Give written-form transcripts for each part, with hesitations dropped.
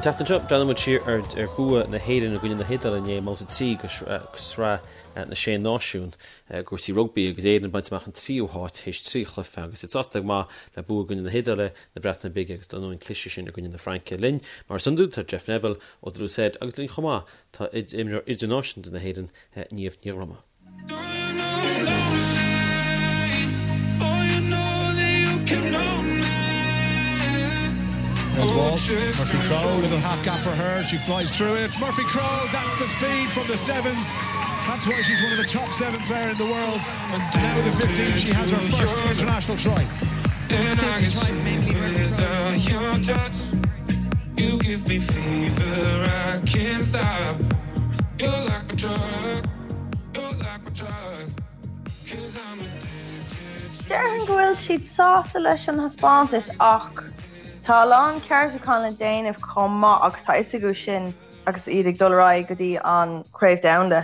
An tseachtain seo, breathnóidh muid siar ar bua na hÉireann i gcoinne na hIodáile inné i mbabhta 3 de Shraith na Sé Náisiún i gcúrsaí rugbaí agus Éirinn ag baint amach an tríú háit théis 3 chluiche agus iad sásta go maith le bua i gcoinne na hIodáile, na Breataine Bige agus dar ndóigh an cliseadh sin i gcoinne na Fraince. Linn, mar is iondúil, tá Jeff Neville ó The Loose Head agus linn chomh maith tá imreoir idirnáisiúnta na hÉireann, Niamh Ní Dhroma. Murphy Crowe, little half gap for her. She flies through it. Murphy Crowe, that's the speed from the sevens. That's why she's one of the top seven player in the world. And now with the 15, she has her first international try. You give me fever, I can't stop. You're like my drug, you're like my drug. Cause I'm addicted Déarfainn go bhfuil siad sásta leis an thaispeántas ach tá a lán ceartúchán le déanamh chomh maith agus tá fhios acu sin agus iad ag dul ar aghaidh go dtí an Chraobh Domhanda.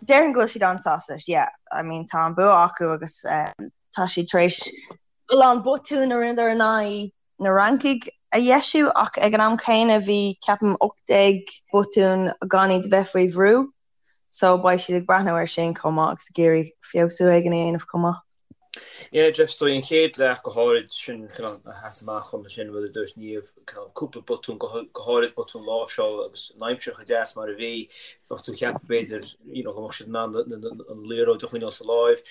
Déarfainn go bhfuil siad an-sásta leis, yeah. I mean tá an bua acu agus tá siad tar éis a lán botún a rinneadar in aghaidh na Francaigh a dheisiú ach ag an am céanna bhí, ceapaim, 18 botún gan iad a bheith faoi bhrú so beidh siad ag breathnú air sin chomh maith agus ag iarraidh feabhsú éigin a dhéanamh chomh maith. Yeah, Jeff, is dóigh an chéad leath go háirid sin cineál a sheas amach dhom sin rud a dúirt Niamh, cineál cúpla botún, go háirid botún láimhseála agus an aimsir chomh deas mar a bhí, bheadh tú ag ceapadh b'fhéidir you know go mbeadh siad in ann an liathróid a choinneáil sa láimh.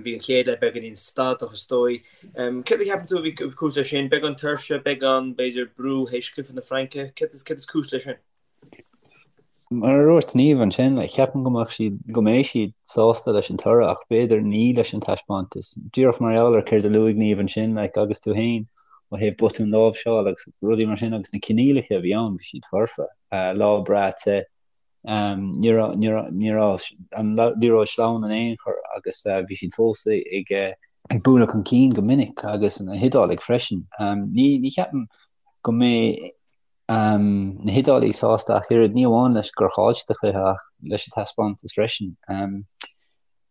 Bhí an chéad leath beagáinín stadach is dóigh. Céard a cheapann tú a bhí cúis leis sin? Beagán tuirse, beagán, b'fhéidir, brú théis cluiche na Fraince? Céard is cúis leis sin? Mar a dúirt Niamh ansin, ceapaim go mbeadh siad, go mbeidh siad sásta leis an toradh ach b'fhéidir ní leis an taispeántas. Díreach mar gheall ar céard a luaigh Niamh ansin, like, agus tú féin, ó thaobh botún láimhseála agus rudaí mar sin agus na coinníollacha a bhí ann, bhí siad foirfe. Lá breá te. Ní raibh an liathróid sleamhain in aon chor agus bhí siad fós ag ag bualadh chun cinn go minic agus na hIodálaigh freisin. Ní cheapaim go mbeidh na hIodálaigh sásta ach oiread, ní amháin leis gur chaill siad an cluiche ach leis an taispeántas freisin.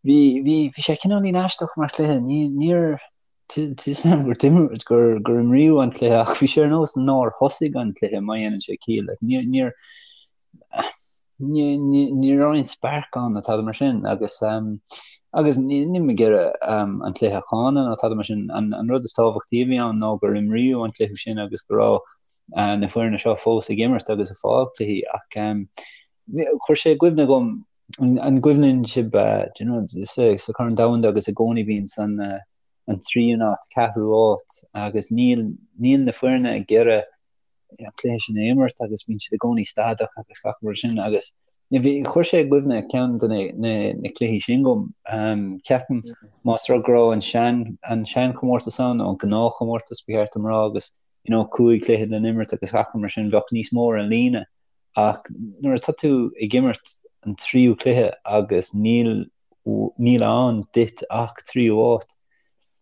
Bhí bhí bhí sé cineáilín aisteach mar chluiche. Ní níor tá 'fhios a'm gur d'imir gur gur imríodh an cluiche ach bhí sé ar nós nár thosaigh an cluiche má dhéanann sé ciall. Like, níor níor Ní raibh aon spark ann nó tada mar sin agus agus níl mé ag iarraidh an cluiche a cháineadh nó tada mar sin. An rud is tábhachtaí a bhí ann ná gur imríodh an cluiche sin agus go raibh na foirne seo fós ag imirt agus ag fáil cluichí ach chuir sé i gcuimhne dhom an gcuimhníonn sibh do you know sa Chorn Domhanda agus i gcónaí bíonn san an tríú háit, ceathrú háit agus níl níl na foirne ag iarraidh an cluiche sin a imirt agus bíonn siad i gcónaí stadach agus gach rud sin agus bhí chuir sé i gcuimhne ceann de na, na, na cluichí sin dhom. Um, ceapaim más rud go raibh an sean an seanchomórtas ann nó an gnáthchomórtas ba cheart dom rá agus you know, cúig chluiche le n-imirt agus gach rud mar sin bheadh níos mó ar an líne ach nuair atá tú ag imirt an tríú cluiche agus níl níl ann duit ach tríú háit.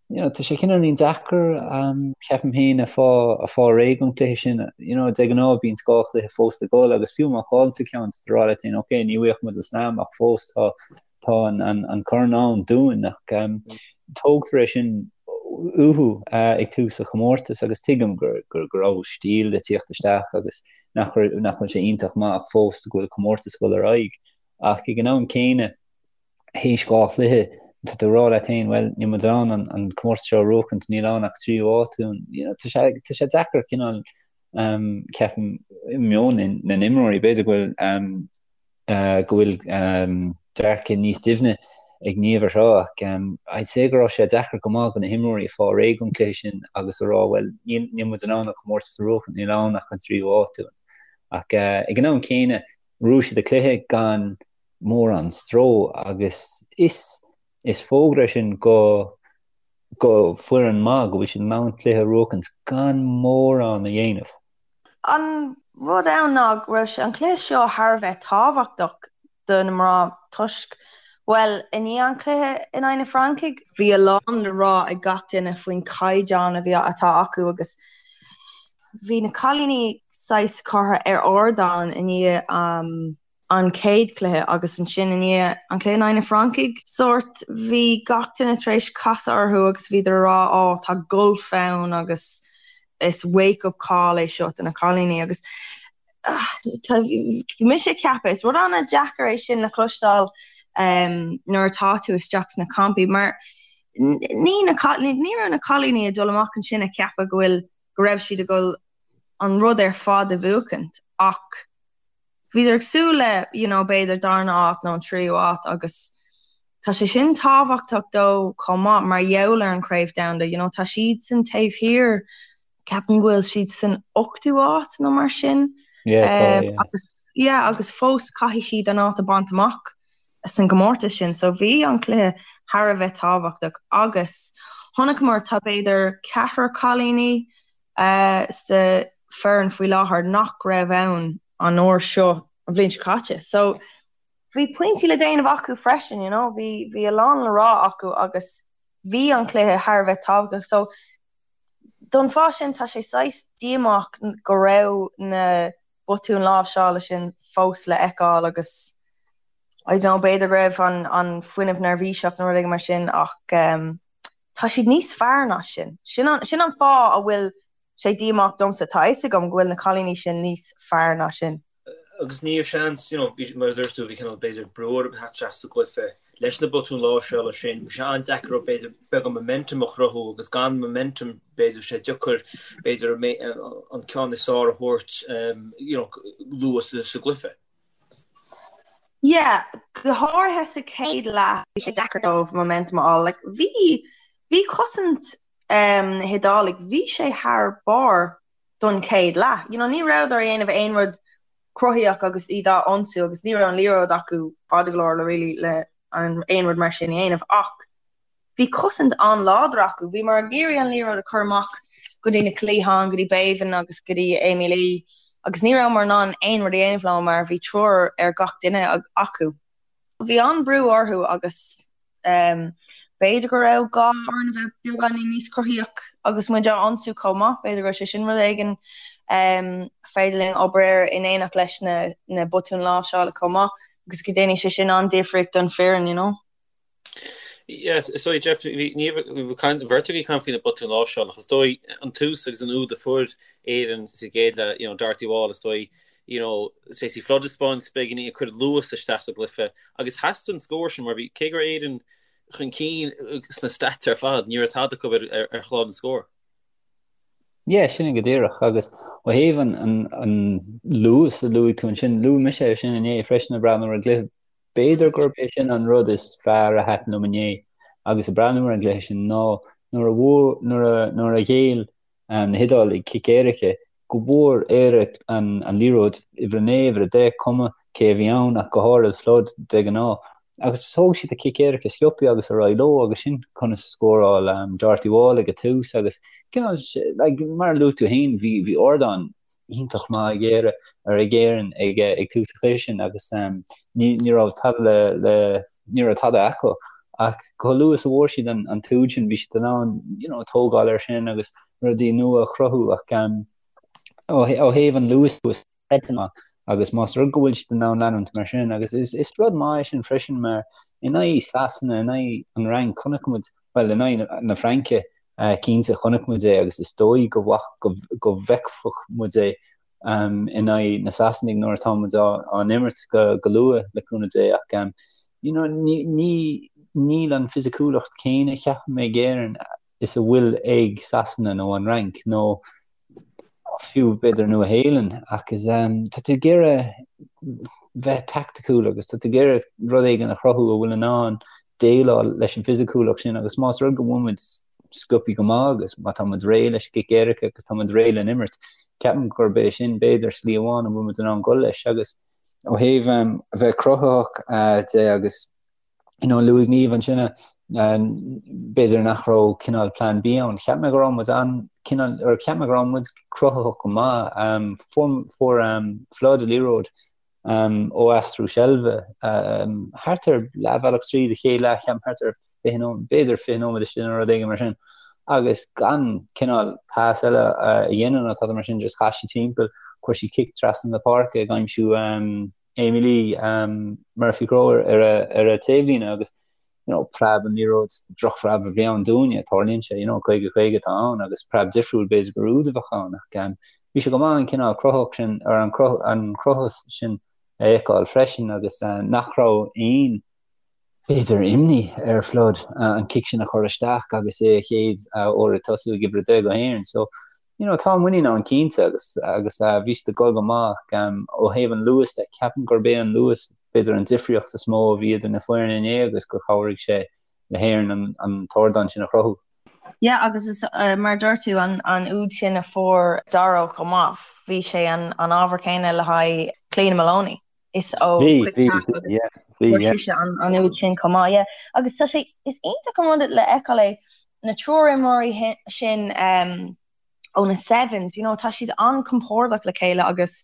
You know, tá sé cineáilín deacair, um, ceapaim féin, a fáil, a fáil réidh don chluiche sin. You know, de ghnáth bíonn dhá chluiche fós le dhul agus fiú má chailleann tú ceann, tá tú ag rá leat féin, ok, ní bhuafaidh muid an slam ach fós tá, tá an, an, an corn ann dúinn ach um, tógtar é sin uathu uh, ag tús an chomórtais agus tuigim gur, gur, go raibh stíl le tíocht isteach agus nach, nach bhfuil sé iontach maith ach fós go bhfuil comórtas ag dul ar aghaidh. Ach ag an am céanna, théis dhá chluiche, tá tú ag rá leat féin, bhuel, níl muid in ann an comórtas seo a bhuachaint, níl ann ach tríú háit dúinn. You know, tá sé, tá sé deacair cineál, um, ceapaim, i meon na n-imreoirí, b'fhéidir go bhfuil, um, uh, go bhfuil um, dearcadh níos doimhne ag Niamh ar seo, ach um, I'd say go raibh sé deacair go maith do na himreoirí a fáil réidh don chluiche sin agus a rá, bhuel, níl, níl muid in ann an comórtas a bhuachaint, níl ann ach an tríú háit dúinn. Ach uh, ag an am céanna, Bhuaigh siad an cluiche gan mórán stró agus is is fógra é sin go go foireann maith go bhfuil siad in ann cluiche a bhuachaint gan mórán a dhéanamh. An rud ann ná go raibh an cluiche seo thar a bheith tábhachtach do na mná toisc, bhuel, i ndiaidh an chluiche in aghaidh na Francaigh, bhí a lán le rá ag gach duine faoin chaighdeán a bhí atá acu agus Bhí na cailíní saghas curtha ar ardán i ndiaidh an chéad chluiche agus ansin i ndiaidh an chluiche in aghaidh na Francaigh, sórt, bhí gach duine tar éis casadh orthu agus bhíodar ag rá ó tá golf ann agus is wake up call é seo do na cailíní agus. Bhí mise ag ceapadh, is rud an-deacair é sin le cloisteáil nuair atá tú isteach sna campaí mar ní ní raibh na cailíní ag dul amach ansin ag ceapadh go bhfuil go raibh siad ag dul an rud ar fad a bhuachaint ach bhíodar ag súil le you know b'fhéidir darna áit nó an tríú áit agus tá sé sin tábhachtach dóibh chomh maith mar gheall ar an Chraobh Domhanda you know tá siadsan taobh thiar Ceapaim go bhfuil siad san ochtú áit nó mar sin. Yeah, tá, yeah. Agus, yeah, agus fós caithfidh siad an áit a bhaint amach san gcomórtas sin. So bhí an cluiche thar a bheith tábhachtach agus chonaiceamar tá b'fhéidir ceathrar cailíní uh, sa foireann faoi láthair nach raibh ann an uair seo an bhliain seo caite. So bhí pointí le déanamh acu freisin, you know, bhí, bhí a lán le rá acu agus bhí an cluiche thar a bheith tábhachtach. So Don fáth sin, tá sé saghas díomách go raibh na botúin láimhseála sin fós le feiceáil agus I don't know, b'fhéidir go raibh an an fuinneamh neirbhíseach nó rud éigin mar sin ach tá siad níos fearr ná sin. Sin an sin an fáth a bhfuil sé díomách domsa, tá a fhios agam go bhfuil na cailíní sin níos fearr ná sin. Agus ní raibh seans, you know, bhí, mar a dúirt tú, bhí cineál b'fhéidir brú orthu theacht isteach sa gcluiche leis na botúin láimhseála sin. Bhí sé an-deacair orthu b'fhéidir beagán momentum a chruthú agus gan momentum b'fhéidir sé deacair b'fhéidir an ceann is fearr a thabhairt you know, luath sa gcluiche. Yeah, go háirithe sa chéad leath bhí sé deacair dóibh momentum a fháil. Like, bhí, bhí cosaint um, na hIodálaigh, bhí sé thar barr don chéad leath. You know, ní rabhadar ag déanamh aon rud cruthaíoch agus iad á ionsú agus ní raibh an liathróid acu fada go leor le really le aon rud mar sin a dhéanamh ach bhí cosaint an-láidir acu. Bhíomar ag iarraidh an liathróid a chur amach go dtí na cliatháin, go dtí Béibhinn agus go dtí Amy-Leigh agus ní rabhamar in ann aon rud a dhéanamh leo mar bhí triúr ar gach duine acu. Bhí an-brú orthu agus B'fhéidir go raibh gá orainn a bheith beagáinín níos cruthaíoch agus muid á ionsú chomh maith, b'fhéidir go raibh sé sin rud éigin féidir linn obair air in éineacht leis na na botúin láimhseála chomh maith agus go ndéanfaidh sé sin an-difríocht don foireann, you know. Yes, is dóigh Jeff, bhí ní bhí caint bheirt agaibh ag caint faoi na botúin láimhseála ach is dóigh an tús agus an úd a fuair Éirinn sa gcéad leath, you know, Dorothy Wall is dóigh you know, Stacey Flood ag spáint beagáinín ag cur luas isteach sa gcluiche agus theastaigh an scór sin mar bhí, cé go raibh Éirinn chun cinn sna stats ar fad, ní raibh tada acu ar, ar chlár na scór. Yeah, sin é go díreach agus ó thaobh an, an, an luas a luaigh tú ansin, luaigh mise é sin inné freisin ag breathnú ar an gcluiche. B'fhéidir gurb é sin an rud is fearr a thaitin liom inné agus ag breathnú ar an gcluiche sin ná nuair a bhfuair, nuair a, nuair a ghéill na hIodálaigh cic éirice, go bhfuair Éire an liathróid, uimhir a 9, uimhir a 10, cuma cé a bhí ann ach go háirid Flood de ghnáth. Agus thóg siad a cic éirice sciobtha agus ar aghaidh leo agus sin conas a scóráil Dorothy Wall ag an tús agus cineál like mar a luaigh tú féin bhí bhí ardán iontach maith ag Éire ar ag Éirinn ag ag tús an chluiche sin agus ní ní raibh tada le le ní raibh tada acu ach chomh luath is a bhfuair siad an an t-úd sin bhí siad in ann you know tógáil air sin agus rudaí nua a chruthú ach ó thaobh an luas agus más rud go bhfuil siad in ann leanúint mar sin agus is, is rud maith é sin freisin mar in aghaidh Sasana, in aghaidh an Fhrainc, chonaic muid, bhuel in aghaidh na Fraince cinnte chonaic muid é agus is dóigh go go, go bhfeicfeadh muid é in aghaidh na Sasanaigh nuair atá muid á, á n-imirt go, go luath le cúnamh Dé ach you know, ní, ní, níl an fisiciúlacht céanna ceapaim ag Éirinn is a bhfuil ag Sasana nó an Fhrainc nó fiú b'fhéidir Nua Shéalainn ach is tá tú ag iarraidh bheith taicticiúil agus tá tú ag iarraidh rud éigin a chruthú a bhfuil in ann déileáil leis an bhfisiciúlacht sin agus más rud go bhfuil muid sciobtha go maith agus má tá muid réidh leis an gcic éirice agus tá muid réidh le n-imirt, ceapaim gurb é sin b'fhéidir slí amháin a bhfuil muid in ann dul leis agus ó thaobh a bheith cruthaitheach de agus you know, luaigh Niamh ansin b'fhéidir nach raibh cineál plan B ann. Cheap mé go raibh muid an cineál or cheap mé go raibh muid cruthaitheach go maith. Um, fuair fuair um, Flood liathróid um, ó aistriú seilbhe um, thart ar leathbhealach tríd an chéad leath cheapaim thart ar 20 nóiméad b'fhéidir 20 nóiméad istigh nó rud éigin mar sin. Agus gan cineál pas eile a dhéanamh nó tada mar sin just chas sí timpeall, chuir sí cic trasna na páirce ag aimsiú um, Amee-Leigh Murphy Crowe ar a taobhlíne agus you know preab an liathróid drochphreab a bhí ann dúinne, tarlaíonn sé you know 50 50 atá ann agus preab difriúil b'fhéidir gur úd a bheadh ann ach um, Bhí sé go maith an cineál cruthach sin, ar an an cruthúnas sin a fheiceáil freisin agus nach raibh aon, b'fhéidir, imní ar Flood an cic sin a chur isteach agus é a chéad uair ag tosú ag uimhir 10 do Éirinn. So, you know, tá muinín ann cinnte agus agus bhí siad ag dul go maith ó thaobh an luas de. Ceapaim gurb é an luas b'fhéidir an difríocht is mó a bhí idir na foirne inné agus gur chabhraigh sé le hÉirinn an an t-ardán sin a chruthú. Yeah agus is mar a dúirt tú an an úd sin a fuair Doro chomh maith, bhí sé an an ábhar céanna le haghaidh Cliodhna Moloney. Is ó Bhí, bhí, yeah, bhí, yeah. sise an an úd sin chomh maith, yeah. Agus tá sé, is iontach an rud le feiceáil é na triúr imreoirí sin um, ó na Sevens, you know, tá siad an-compordach le chéile agus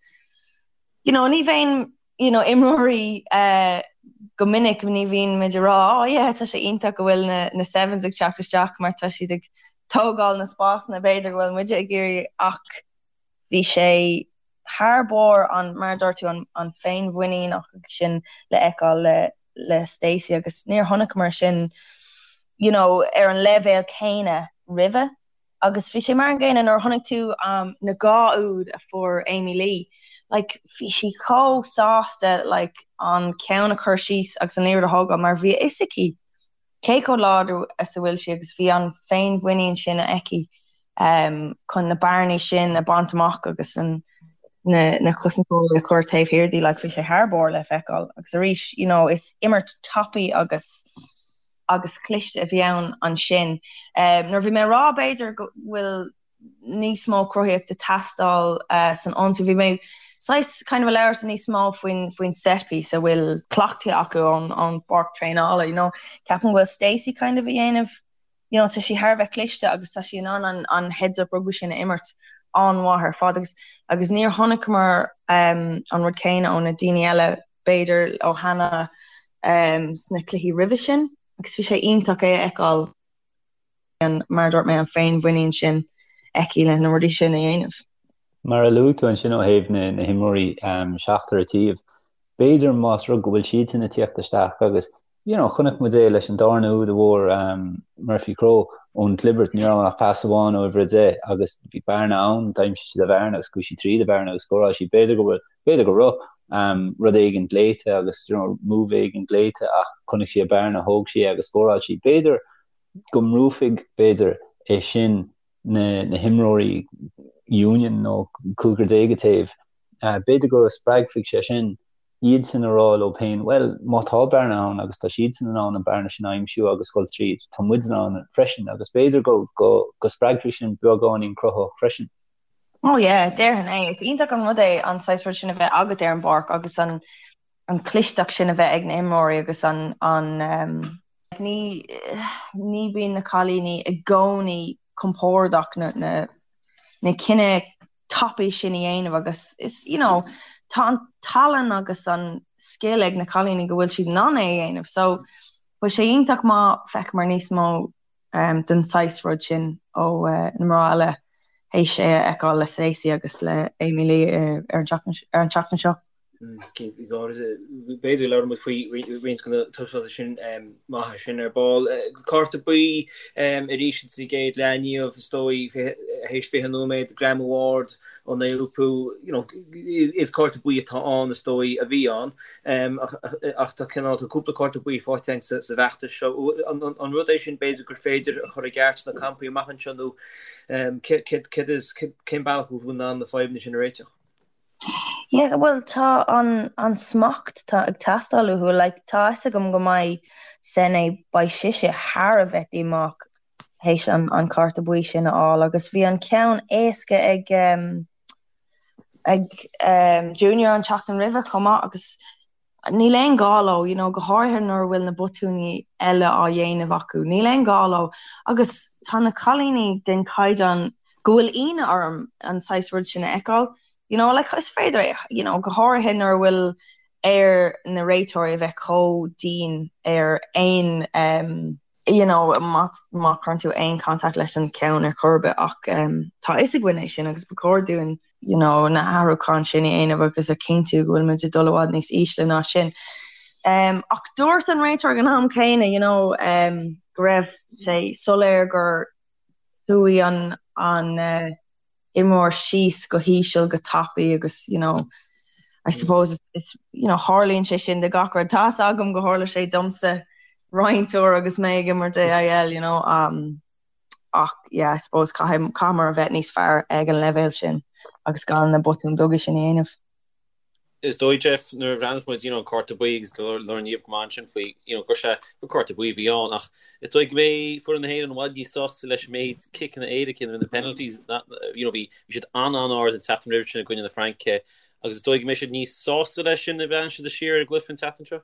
you know, ní bheinn you know, imreoirí uh, go minic ní bhíonn muid ag rá oh yeah, tá sé iontach go bhfuil na, na Sevens ag teacht isteach mar tá siad ag tógáil na spásanna b'fhéidir go bhfuil muide ag iarraidh ach bhí sé thar barr an mar a dúirt tú an, an féinmhuinín sin le feiceáil le, le Stacey agus níor chonaiceamar sin you know, ar an leibhéal céanna roimhe. Agus bhí sé mar an gcéanna nuair a chonaic tú um, na dhá úd a fuair Amy Lee. Like, bhí sí chomh sásta like, an ceann a chur síos agus an liathróid a thógáil mar bhí a fhios aici cé chomh láidir is a bhfuil sí agus bhí an féinmhuinín sin aici um, chun na bearnaí sin a bhaint amach agus an, na, na cosantóirí a chur taobh thiar di, like, bhí sé thar barr le feiceáil. Agus arís, you know, is imirt tapaidh agus agus cliste a bhí ann ansin. Um, nuair bhí mé ag rá b'fhéidir go bhfuil níos mó cruthaíocht ag teastáil uh, san ionsaí, bhí mé saghas kind of ag labhairt níos mó faoin faoin set piece a bhfuil cleachtaithe acu ón ón bpáirc traenála, you know. Ceapaim go bhfuil Stacey kind of a dhéanamh you know, tá sí thar a bheith cliste agus tá sí in ann an, an heads up rugby sin a imirt an-mhaith ar fad agus agus níor chonaiceamar um, an rud céanna ó na daoine eile b'fhéidir ó Hannah um, sna cluichí roimhe sin agus bhí sé iontach é a fheiceáil an, mar a dúirt mé an féinmhuinín sin aici le na rudaí sin a dhéanamh. Mar a luaigh tú ansin ó thaobh na, na himreoirí um, seachtar an taobh, b'fhéidir más rud go bhfuil siadsan ag tíocht isteach agus you know, chonaic muid é leis an darna úd a fuair um, Murphy Crowe ón gclibirt, ní raibh ach pas amháin ó uimhir 10 agus bhí bearna ann, d'aimsigh sí an bhearna agus chuaigh sí tríd an bhearna agus scóráil sí. B'fhéidir go bhfuil, b'fhéidir go raibh um, rud éigin glaoite agus you know, move éigin glaoite ach chonaic sí an bearna, thóg sí é agus scóráil sí. B'fhéidir go mbrúfaidh, b'fhéidir, é sin na, na himreoirí Union nó cúigear déag an taobh. Uh, b'fhéidir go spreagfaidh sé sin iadsan a rá leo féin, bhuel, má tá bearna ann agus tá siadsan in ann an bearna sin a aimsiú agus dul tríd, tá muid in ann freisin agus b'fhéidir go, go, go spreagfaidh sin beagáinín cruthaitheacht freisin. Oh yeah, déarfainn é. Is iontach an rud é an saghas rud sin a bheith agat ar an bpáirc agus an, an clisteacht sin a bheith ag na imreoirí agus an, an, um, ní, ní bíonn na cailíní i gcónaí compordach na, na, na cinneadh tapaidh sin a dhéanamh agus is, you know, tá an tallann agus an scil ag na cailíní go bhfuil siad in ann é a dhéanamh. So, bheadh sé iontach má fheiceamar níos mó um, den saghas rud sin ó uh, na mná eile théis é a fheiceáil le Stacey agus le Amy Lee uh, ar an tseachtain seo. B'fhéidir labhróidh muid faoi roinnt de na taispeántais sin maithe sin ar ball. Cárta buí arís sa gcéad leath inniu, is dóigh, théis 20 nóiméad, greamú ard ó Naoupu. Is cárta buí atá ann, is dóigh, a bhí ann. Ach tá cineál, tá cúpla cárta buí faighte againn sa bhfeachtas seo. An rud é sin b'fhéidir gur féidir a chur i gceart sna campaí amach anseo nó cén bealach a bhfuil in ann na fadhbanna sin a réiteach? Yeah, bhuel tá an an smacht tá ag teastáil uathu, like tá fhios agam go mbeidh Sene, beidh sise thar a bheith díomách théis an an cárta buí sin a fháil agus bhí an ceann éasca ag um, ag um, Junior an tseachtain roimhe chomh maith agus Níl aon ghá leo, you know, go háirithe nuair a bhfuil na botúin eile á dhéanamh acu. Níl aon ghá leo. Agus tá na cailíní den chaighdeán go bhfuil ionadh orm an saghas rud sin a fheiceáil. You know, like, is féidir é, you know, go háirithe nuair a bhfuil ar na réiteoirí a bheith chomh dian ar aon um, you know, má má chuireann tú aon contact leis an ceann ar chor ar bith ach um, tá fhios againn é sin agus ba chóir dúinn you know, na hathrúcháin sin a dhéanamh agus a chinntiú go bhfuil muid ag dul i bhfad níos ísle ná sin. Um, ach dúirt an réiteoir ag an am céanna you know, um, go raibh sé soiléir gur chuaigh an, an uh, imreoir síos go híseal go tapaidh agus you know I suppose it's, it's you know tharlaíonn sé sin de gach rud. Tá's agam go tharla sé domsa roinnt uair agus mé ag imirt AIL you know um, ach yeah I suppose caithfidh caithfear a bheith níos fearr ag an leibhéal sin agus gan na botúin beaga sin a dhéanamh. Is dóigh, Jeff, nuair a bhreathnaíos muid, you know, an cárta buí agus labhair Niamh go maith ansin faoi, you know, gur sé, gur cárta buí a bhí ann ach is dóigh go mbeidh foireann na hÉireann i bhfad níos sásta leis an méid ciceanna éirice nó na penalties, you know, bhí siad an-an-ard an tseachtain roimhe sin i gcoinne na Fraince agus is dóigh go mbeidh siad níos sásta leis sin nuair a bhreathnaíonn siad siar ar an gcluiche an tseachtain seo.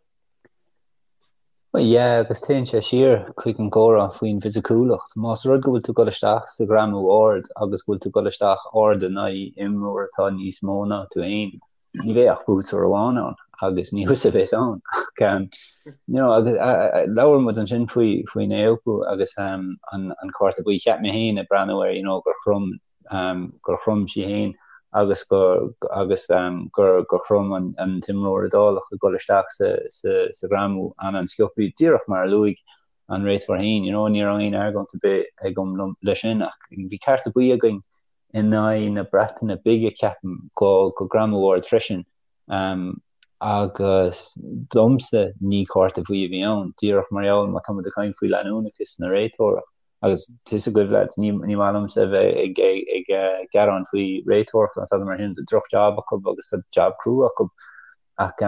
Bhuel, yeah, agus téann sé siar chuig an gcomhrá faoin bhfisiciúlacht. Más rud go bhfuil tú ag dul isteach sa ghreamú ard agus go bhfuil tú ag dul isteach ard in aghaidh imreoir atá níos mó ná tú fhéin, ní bheidh ach buaiteoir amháin ann agus ní thusa a bheas ann. Ach, um, you know, agus labhair muid ansin faoi faoin Naoupu agus um, an, an cárta buí. Cheap mé féin ag breathnú air, you know, gur chrom gur chrom sí féin agus gur agus gur gur chrom an an t-imreoir Iodálach ag dul isteach sa sa sa ghreamú an-an-sciobtha, díreach mar a luaigh an réiteoir féin, you know, ní raibh aon argóint ar bith agam liom leis sin ach bhí cárta buí againn in aghaidh na Breataine Bige ceapaim go go greamú ard freisin um, agus domsa ní cárta buí a bhí ann, díreach mar gheall má tá muid ag caint faoi leanúnachas na réiteoireachta. Agus tá fhios agaibh lads, ní maith liomsa a bheith ag gearán faoi réiteoireacht nó tada mar sin, tá droch job acu agus tá job crua acu ach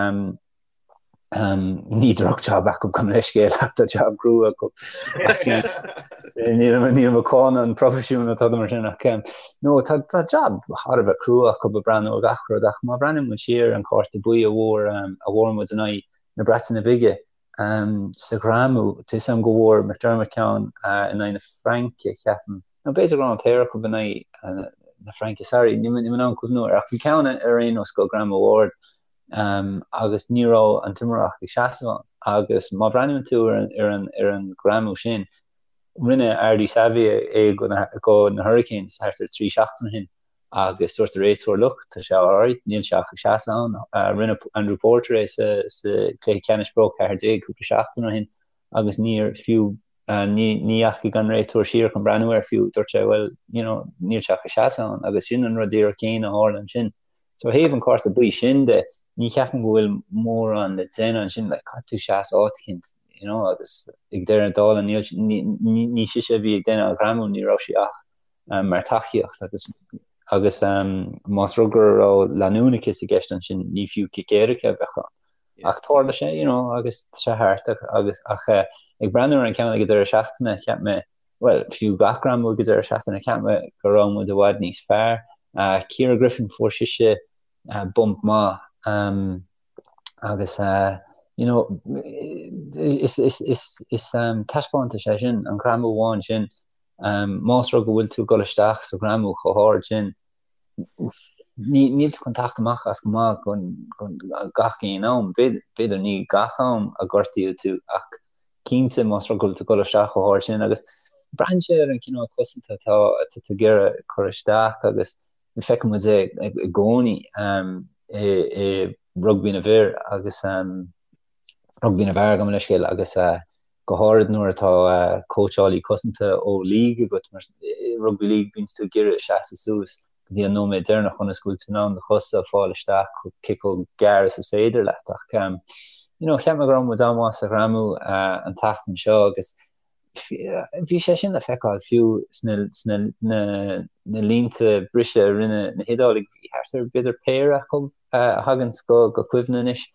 ní droch job acu gabh mo leithscéal ach tá job crua acu. Níl mé ag cáineadh an proifisiún nó tada mar sin ach no tá tá job thar a bheith crua acu ag breathnú ar gach rud ach má bhreathnaíonn muid siar an cárta buí a bhfuair a bhfuair muid in aghaidh na Breataine Bige Sa ghreamú, tá fhios agam go bhfuair McDermott ceann in aghaidh na Fraince, ceapaim. Nó b'fhéidir go raibh an péire acu in aghaidh na Fraince, sorry, níl mé in ann cuimhniú air, ach bhí ceann ar aon nós go greamú ard agus ní raibh an t-imreoir ach ag seasamh ann. Agus má bhreathnaíonn tú ar an ar an greamú sin, rinne Ardie Savea é go na Hurricanes thart ar 3 seachtain ó shin. agus dúirt an réiteoir look, tá sé alright, níl sé ach ag seasamh ann. Rinne Andrew Porter é sa chluiche ceannais Pro 14 cúpla seachtain ó shin agus níor fiú ní dheachaigh an réiteoir siar chun breathnú air fiú, dúirt sé well, you know, níl sé ach ag seasamh ann agus sin an rud díreach céanna a tharla ansin. So ó thaobh an cárta buí sin de, ní cheapaim go bhfuil mórán le déanamh ansin, like, caithfidh tú seasamh áit eicínt, you know, agus ag deireadh na dála níl, ní, ní sise a bhí ag déanamh an ghreamú, ní raibh sí ach mar tacaíocht agus agus más rud go raibh leanúnachas i gceist ansin ní fiú cic éirice a bheadh ann. Ach tharla sé, you know, agus tá sé thart agus ach ag breathnú ar an ceann ag an deireadh seachtaine cheap mé, bhuel, fiú gach greamú ag an deireadh seachtaine cheap mé go raibh muid i bhfad níos fearr. Ciara Griffin fuair sise bump maith agus you know, is is is is taispeántas é sin, an greamú amháin sin Más rud go bhfuil tú ag dul isteach sa ghreamú chomh hard sin, níl tú chun teacht amach as go maith gach aon am. B'fhéidir ní gach am a gortaíodh tú ach cinnte más rud go bhfuil tú ag dul isteach chomh hard sin agus braitheann sé ar an cineál cosanta atá tú ag iarraidh cur isteach agus feiceann muid é i gcónaí i rugbaí na bhfir agus rugbaí na bhfear gabh mo leithscéal agus go háirid nuair atá cóitseálaí cosanta ó league agat, mar i rugbaí league bíonns tú ag iarraidh seasamh suas go dtí an nóiméad deireanach ionas go bhfuil tú in ann do chosa a fáil isteach cé chomh gearr is is féidir leat. Ach you know cheap mé go raibh muid an-mhaith sa ghreamú an tseachtain seo agus bhí sé sin le feiceáil fiú sna sna na na línte briseadh a rinne na hIodálaigh, bhí thart ar b'fhéidir péire acu a thaganns go go cuimhne anois.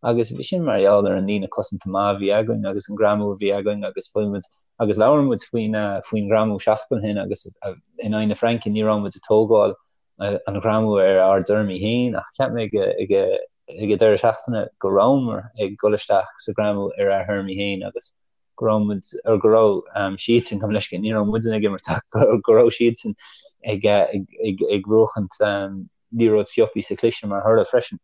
agus bhí sin mar gheall ar an líne cosanta maith a bhí againn agus an greamú a bhí againn agus fuair muid agus labhair muid faoin faoin ghreamú seachtain ó shin agus in aghaidh na Fraince ní raibh muid ag tógáil an ghreamú ar ár dtéarmaí féin ach cheap mé ag ag ag an deireadh seachtaine go rabhamar ag dul isteach sa ghreamú ar ár dtéarmaí féin agus go raibh muid or go raibh siadsan gabh mo leithscéal ní raibh muidne ag imirt ach go raibh siadsan ag ag ag ag buachaint liathróid sciobtha sa chliseadh mar thoradh freisin.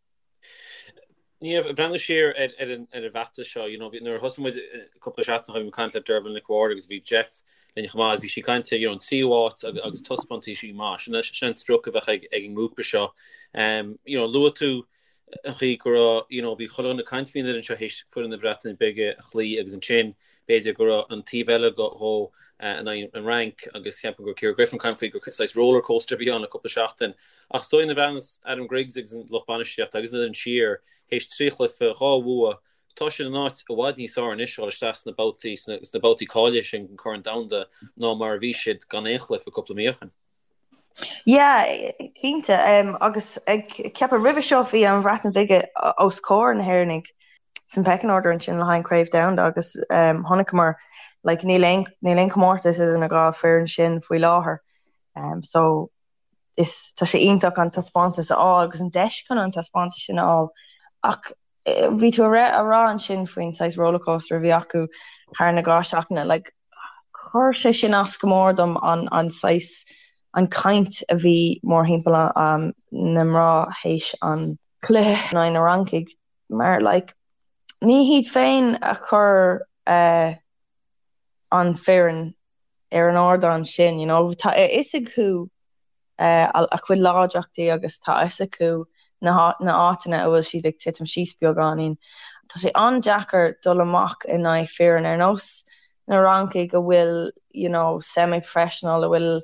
Niamh, ag breathnú siar ar ar an ar an bhfeachtas seo, you know, nuair a thosaigh muid cúpla seachtain ó shin, bhí mé ag caint le Dervla Nic Mhárta agus bhí Jeff linn chomh maith, bhí sí ag caint ar, you know, an tríú háit agus agus taispeántaisí maith. Sin sin an sprioc a bheadh ag ag an ngrúpa seo. Um, you know, luaigh tú an chaoi go raibh, you know, bhí chuile dhuine ag caint faoin fhoireann seo théis foireann na Breataine Bige a chloí agus ansin b'fhéidir go raibh an taobh eile dhó. in aghaidh an Fhrainc agus cheapfainn go raibh Ciara Griffin ag caint faoi gur saghas rollercoaster a bhí ann le cúpla seachtain. Ach is dóigh nuair a bhreathnaíos Adam Griggs agus an lucht bainistíochta agus an fhoireann siar théis 3 chluiche, 2 bhua, tá siad in áit i bhfad níos fearr anois a dhul isteach sna babhtaí sna babhtaí cáilithe sin den Chorn Domhanda ná mar a bhí siad gan aon chluiche cúpla mí ó shin. Yeah, cinnte. Agus ag ceapadh roimhe seo bhí an Bhreatain Bhig os comhair na hÉireannaigh san pecking order ansin le haghaidh an Craobh Domhanda agus chonaiceamar like níl aon níl aon comórtas idir na dhá foireann sin faoi láthair. So is tá sé iontach an taispeántas a fháil agus an deis chun an taispeántas sin a fháil. Ach bhí tú a rá ansin faoin saghas rollercoaster a bhí acu thar na 2 seachtaine, like chuir sé sin as go mór dom an an saghas an caint a bhí mórthimpeall na mná théis an cluiche in aghaidh na Fhrancaigh mar like ní hiad féin a chuir an foireann ar an ardán sin, you know, tá a fhios acu a chuid láidreachtaí agus tá a fhios acu na háiteanna a bhfuil siad ag titim síos beagáinín. Tá sé an-deacair dul amach in aghaidh foireann ar nós na Fhrancaigh a bhfuil you know semi-professional a bhfuil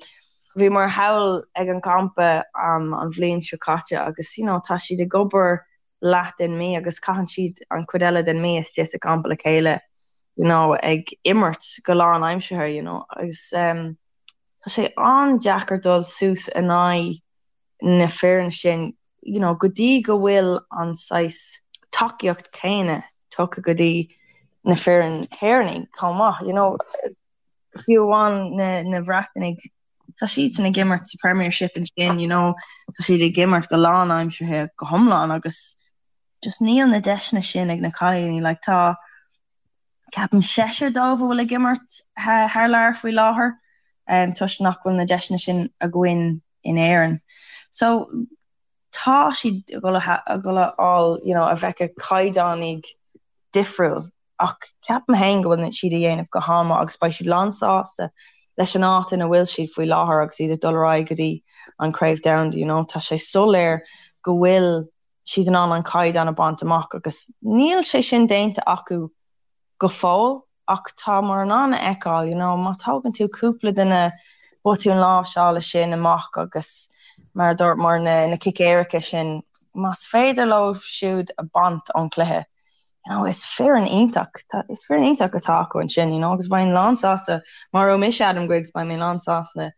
bhíomar thall ag an gcampa an bhliain seo caite agus you know tá siad ag obair leath den mí agus caitheann siad an chuid eile den mí istigh sa gcampa le chéile you know ag imirt go lánaimseartha you know agus um, Tá sé an-deacair dul suas in aghaidh na foireann sin you know go dtí go bhfuil an saghas tacaíocht céanna tugtha go dtí na foireann Éireannaigh chomh maith. You know fiú amháin na na Bhreatanaigh tá siadsan ag imirt sa Premiership ansin you know tá siad ag imirt go lánaimseartha go hiomlán agus just níl na deiseanna sin ag na cailíní like tá Ceapaim seisear dóibh a bhfuil ag imirt thar lear faoi láthair toisc nach bhfuil na deiseanna sin againn in Éirinn. So tá siad ag dul a dhul a fháil you know a bhfeiceadh caighdeánaigh difriúil ach ceapaim féin go bhfuil siad a dhéanamh go han-mhaith agus beidh siad lán sásta leis an áit ina bhfuil siad faoi láthair agus iad ag dul ar aghaidh go dtí an Craobh Domhanda you know tá sé soiléir go bhfuil siad in ann an caighdeán a bhaint amach agus níl sé sin déanta acu go fóill ach táimid in ann a fheiceáil you know má tógann tú cúpla de na botúin láimhseála sin amach agus mar a dúirt mar na na cic éirice sin más féidir leo siúd a baint ón cluiche you know is foireann iontach tá is foireann iontach atá acu ansin you know agus bheinn lán sásta má raibh mise Adam Griggs beidh mé lán sásta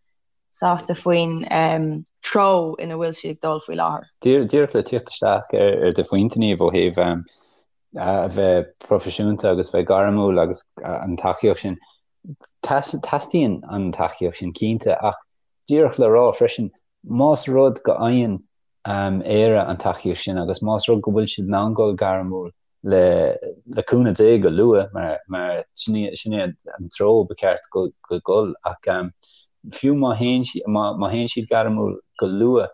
sásta faoin treo ina bhfuil siad ag dul faoi láthair. Díreach le tíocht isteach ar do phointe, Niamh, ó thaobh a bheith proifisiúnta agus bheith gairmiúil agus an tacaíocht sin, teastaíonn an tacaíocht sin cinnte ach díreach le rá freisin, más rud go fhaigheann Éire an tacaíocht sin agus más rud go bhfuil siad in ann dul gairmiúil le le cúnamh Dé go luath mar mar sin sin é an treo ba cheart go go dhul ach fiú má théann siad má má théann siad gairmiúil go luath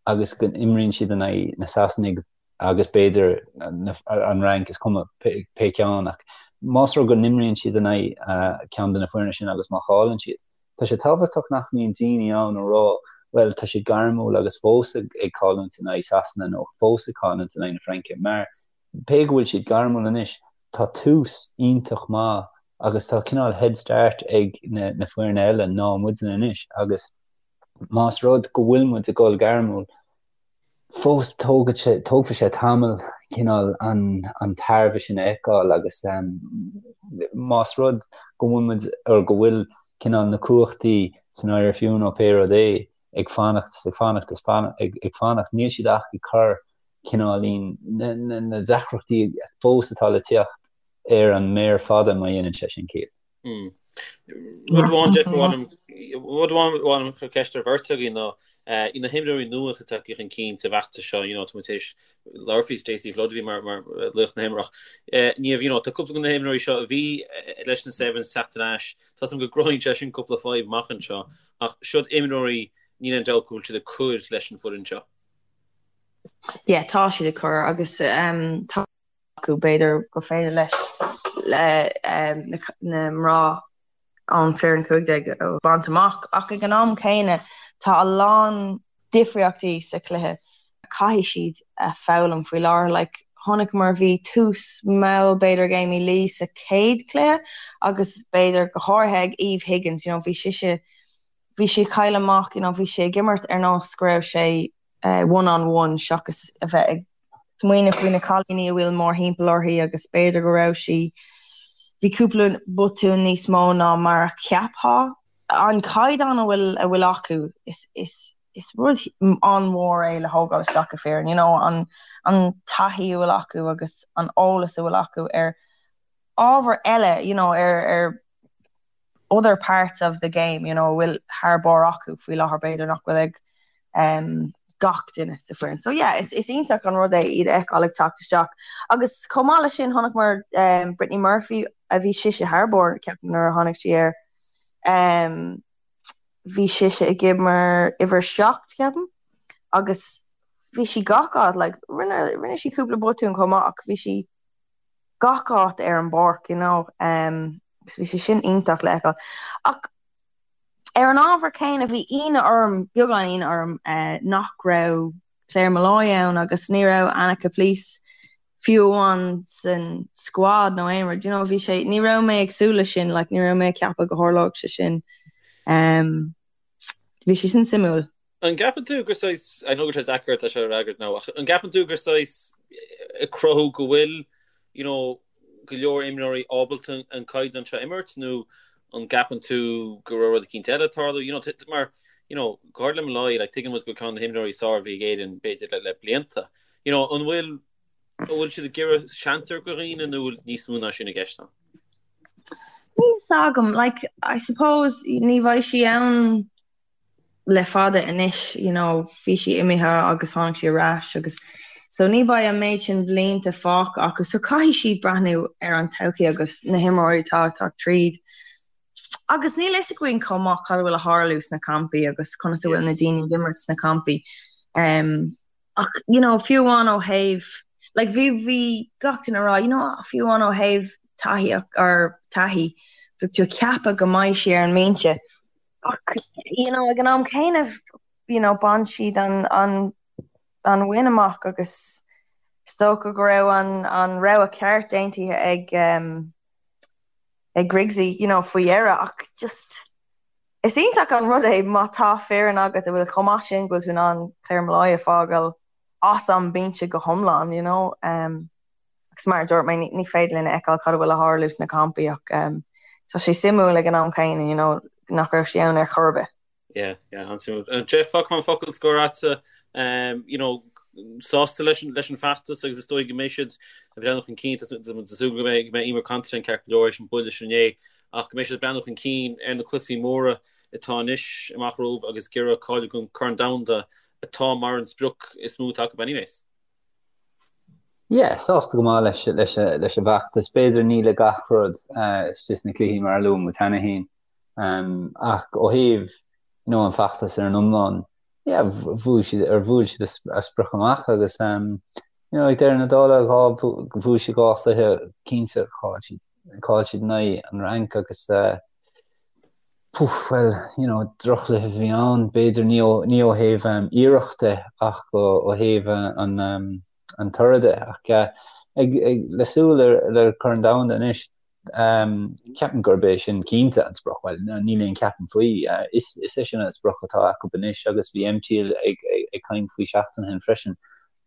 agus go n-imríonn siad in aghaidh na Sasanaigh agus b'fhéidir an Fhrainc is cuma pé pé ceann ach más rud go n-imríonn siad in aghaidh ceann de na foirne sin agus má chailleann siad Tá sé tábhachtach nach mbíonn daoine ann a rá bhuel tá siad gairmiúil agus fós ag ag cailliúint in aghaidh Sasana nó fós ag cailliúint in aghaidh na Fraince mar pé go bhfuil siad gairmiúil anois tá tús iontach maith agus tá cineál head start ag na na foirne eile ná muidne anois agus más rud go bhfuil muid ag dul gairmiúil fós tógfaidh sé tógfaidh sé tamall cineál an an tairbhe sin a fheiceáil agus más rud go bhfuil muid or go bhfuil cineál na cumhachtaí san IRFU nó pé rud é ag fanacht is ag fanacht is ag ag fanacht níl siad ach ag cur cineáilín na na na deacrachtaí fós atá le teacht ar an méar fada má dhéanann sé sin ciall. Rud amháin, Jeff, rud amháin chun ceist ar bheirt agaibh ná na himreoirí nua atá tagtha chun cinn sa bhfeachtas seo, you know, tá muid tar éis labhairt faoi Stacey Flood a bhí mar mar laoch na himeartha. Niamh, you know, tá cúpla de na himreoirí seo a bhí leis na Sevens teacht ar ais. Tá a fhios agam go gcruthaíonn sé sin cúpla fadhb amach anseo, ach siod imreoirí níl aon dabht go bhfuil siad ag cur leis an foireann seo. Yeah, tá siad ag cur agus tá acu, b'fhéidir gur féidir leis na mná an foireann 15 a bhaint amach ach ag an am céanna tá a lán difríochtaí sa chluiche a caithfidh siad a foghlaim faoi láthair. Like. chonaiceamar bhí tús mall b'fhéidir ag Amy Lee sa chéad chluiche agus b'fhéidir go háirithe ag Eve Higgins, you know, bhí sise, bhí sí ag cailleadh amach, you know, bhí sí ag imirt ar nós go raibh sé one on one seachas a bheith ag smaoineamh faoi na cailíní a bhfuil mórthimpeall uirthi agus b'fhéidir go raibh sí, bhí cúpla botún níos mó ná mar a cheapfá. An caighdeán a bhfuil a bhfuil acu is is is rud an-mhór é le thógáil isteach i foireann, you know, an an taithí a bhfuil acu agus an eolas a bhfuil acu ar ábhar eile, you know, ar ar other parts of the game, you know, a bhfuil thar barr acu faoi láthair b'fhéidir nach bhfuil ag um, gach duine sa foireann. So yeah, is, is iontach an rud é iad a fheiceáil ag teacht isteach. Agus chomh maith leis sin chonaiceamar um, Brittany Murphy a bhí sise thar barr ceapaim nuair a tháinig sí air. Um, bhí sise ag imirt uimhir 7 ceapaim agus bhí sí gach áit like, rinne, rinne sí cúpla botún chomh maith ach bhí sí gach áit ar an bpáirc, you know, um, agus bhí sé sin iontach le feiceáil. Ach ar an ábhar céanna bhí ionadh orm, beagán ionadh orm, uh, nach raibh Claire Molloy ann agus ní raibh Anna Caplice fiú amháin san squad nó aon rud, you know, bhí sé, ní raibh mé ag súil leis sin, like, ní raibh mé ag ceapadh go tharlódh sé sin. Um, bhí sé sin suimiúil. An gceapann tú gur saghas, I know go bhfuil sé deacair é seo a fhreagairt now, ach an gceapann tú gur saghas ag cruthú go bhfuil, you know, go leor imreoirí ábalta an caighdeán seo a imirt nó an gceapann tú go raibh rud eicínt eile ag tarlú, you know, mar, you know, go háirid le Molloy, like, tuigeann muid go ceann de na himreoirí is fearr a bhí ag Éirinn b'fhéidir le, le blianta. You know, an bhfuil, an bhfuil siad ag iarraidh seans a thabhairt do dhaoine nó bhfuil níos mó ná sin i gceist ann? Níl fhios agam, like, I suppose ní bheidh sí ann le fada anois, you know, bhí sí imithe agus tháinig sí ar ais agus so ní bheidh an méid sin blianta fágtha acu so caithfidh siad breathnú ar an todhchaí agus na himreoirí atá ag teacht tríd. Agus níl fhios againn chomh maith cad a bhfuil ag tarlú sna campaí agus conas a bhfuil na daoine ag imirt sna campaí. Um, ach you know, fiú amháin ó thaobh like bhí bhí gach duine ag rá you know, fiú amháin ó thaobh taithí or taithí bhí tú ag ceapadh go mbeidh sí ar an mbinse Ach, you know, ag an am céanna, you know, bhain siad an, an, an win amach agus is dócha go raibh an, an rogha ceart déanta ag, um, ag Griggsy, you know, faoi dheireadh ach just is iontach an rud é má tá foireann agat a bhfuil chomh maith sin go bhfuil tú in ann Claire Molloy a fhágáil as an mbinse go hiomlán, you know. Um, Agus mar a dúirt mé, ní féidir linn a fheiceáil cad a bhfuil ag tarlú sna campaí ach tá sé suimiúil ag an am céanna, you know, nach raibh sí ann ar chor ar bith. Yeah, yeah, an-suimiúil. Jeff, fágfaidh mé an focal scoir agatsa, you know, sásta leis an, leis an feachtas agus is dóigh go mbeidh siad ag breathnú chun cinn, tá súil go mbeidh, go mbeidh Eimear Considine ceart go leor théis an buille sin inné, ach go mbeidh siad ag breathnú chun cinn ar na cluichí móra atá anois amach romhaibh agus ag iarraidh cáiliú don Corn Domhanda atá mar an sprioc is mó atá acu anyways. Yeah, sásta go maith leis leis leis an bhfeachtas. B'fhéidir ní le gach rud istigh sna cluichí mar a luaigh muid cheana féin. Ach ó thaobh you know an feachtas ar an iomlán, yeah, bhuaigh siad ar bhuail siad a sprioc amach agus you know ag deireadh na dála bhuaigh siad 2 chluiche cinnte chaill siad chaill siad in aghaidh an Fhrainc agus Poof, bhuel, you know, droch-chluiche a bhí ann, b'fhéidir, ní ó, ní ó thaobh iarracht de ach ó thaobh an, an toradh de. Ach ag, ag, le súil ar, le Corn Domhanda anois, ceapaim gurb é sin cinnte an sprioc. Bhuel, níl aon ceapaim faoi. Is, is é sin an sprioc atá acu anois agus bhí MT ag, ag, ag caint faoi seachtain ó shin freisin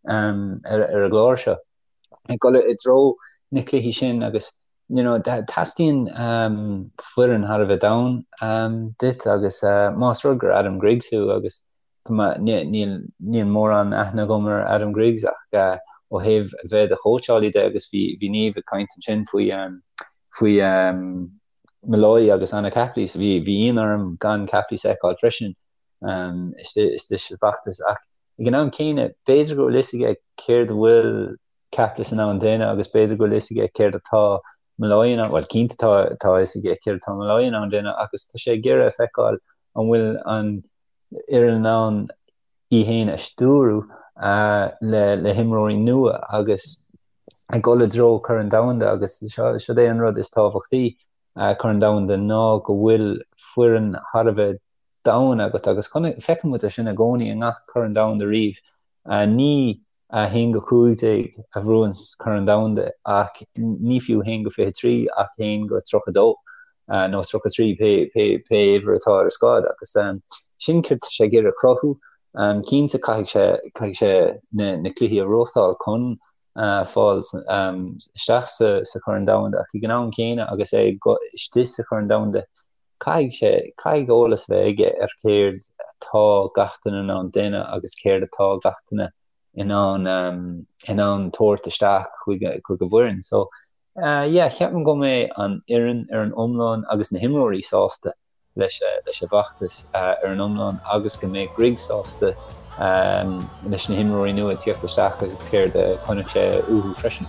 ar, ar an gclár seo. Ag dul i dtreo na cluichí sin agus you know, teastaíonn foireann thar a bheith domhain duit agus más rud gur Adam Griggs thú agus níl níl mórán aithne agam ar Adam Griggs ach ó thaobh a bheith i do chóitseálaí de agus bhí bhí Niamh ag caint ansin faoi faoi Molloy agus Anna Caplice bhí bhí ionadh orm gan Caplice a fheiceáil freisin istigh sa bhfeachtas ach ag an am céanna b'fhéidir go bhfuil fhios aige céard a bhfuil Caplice in ann déanamh agus b'fhéidir go bhfuil fhios aige céard atá Molloy in ann, bhuel cinnte tá tá fhios aige céard atá Molloy in ann déanamh agus tá sé ag iarraidh a feiceáil an bhfuil an fhoireann in ann í féin a stiúradh le le himreoirí nua agus ag dul i dtreo Corn Domhanda agus seo seo é an rud is tábhachtaí Corn Domhanda ná go bhfuil foireann thar a bheith domhain agat agus feiceann muid é sin i gcónaí i ngach Corn Domhanda riamh. Ní. 1-15 a bhuann Corn Domhanda ach ní fiú 1-23 ach 1-32 nó 33 pé pé uimhir atá ar an scáileán agus sin céard tá sé ag iarraidh cruthú. Cinnte caithfidh sé caithfidh sé na na cluichí a bhuachtáil chun fáil isteach sa sa Chorn Domhanda ach ag an am céanna agus é istigh sa Chorn Domhanda caithfidh sé caithfidh eolas a bheith aige ar céard atá gach duine in ann déanamh agus céard atá gach duine in ann in ann tabhairt isteach chuig chuig an bhfoireann. So yeah, ceapaim go mbeidh an fhoireann ar an iomlán agus na himreoirí sásta leis leis an bhfeachtas ar an iomlán agus go mbeidh Grigg sásta leis na himreoirí nua ag tíocht isteach agus céard a chonaic sé uathu freisin.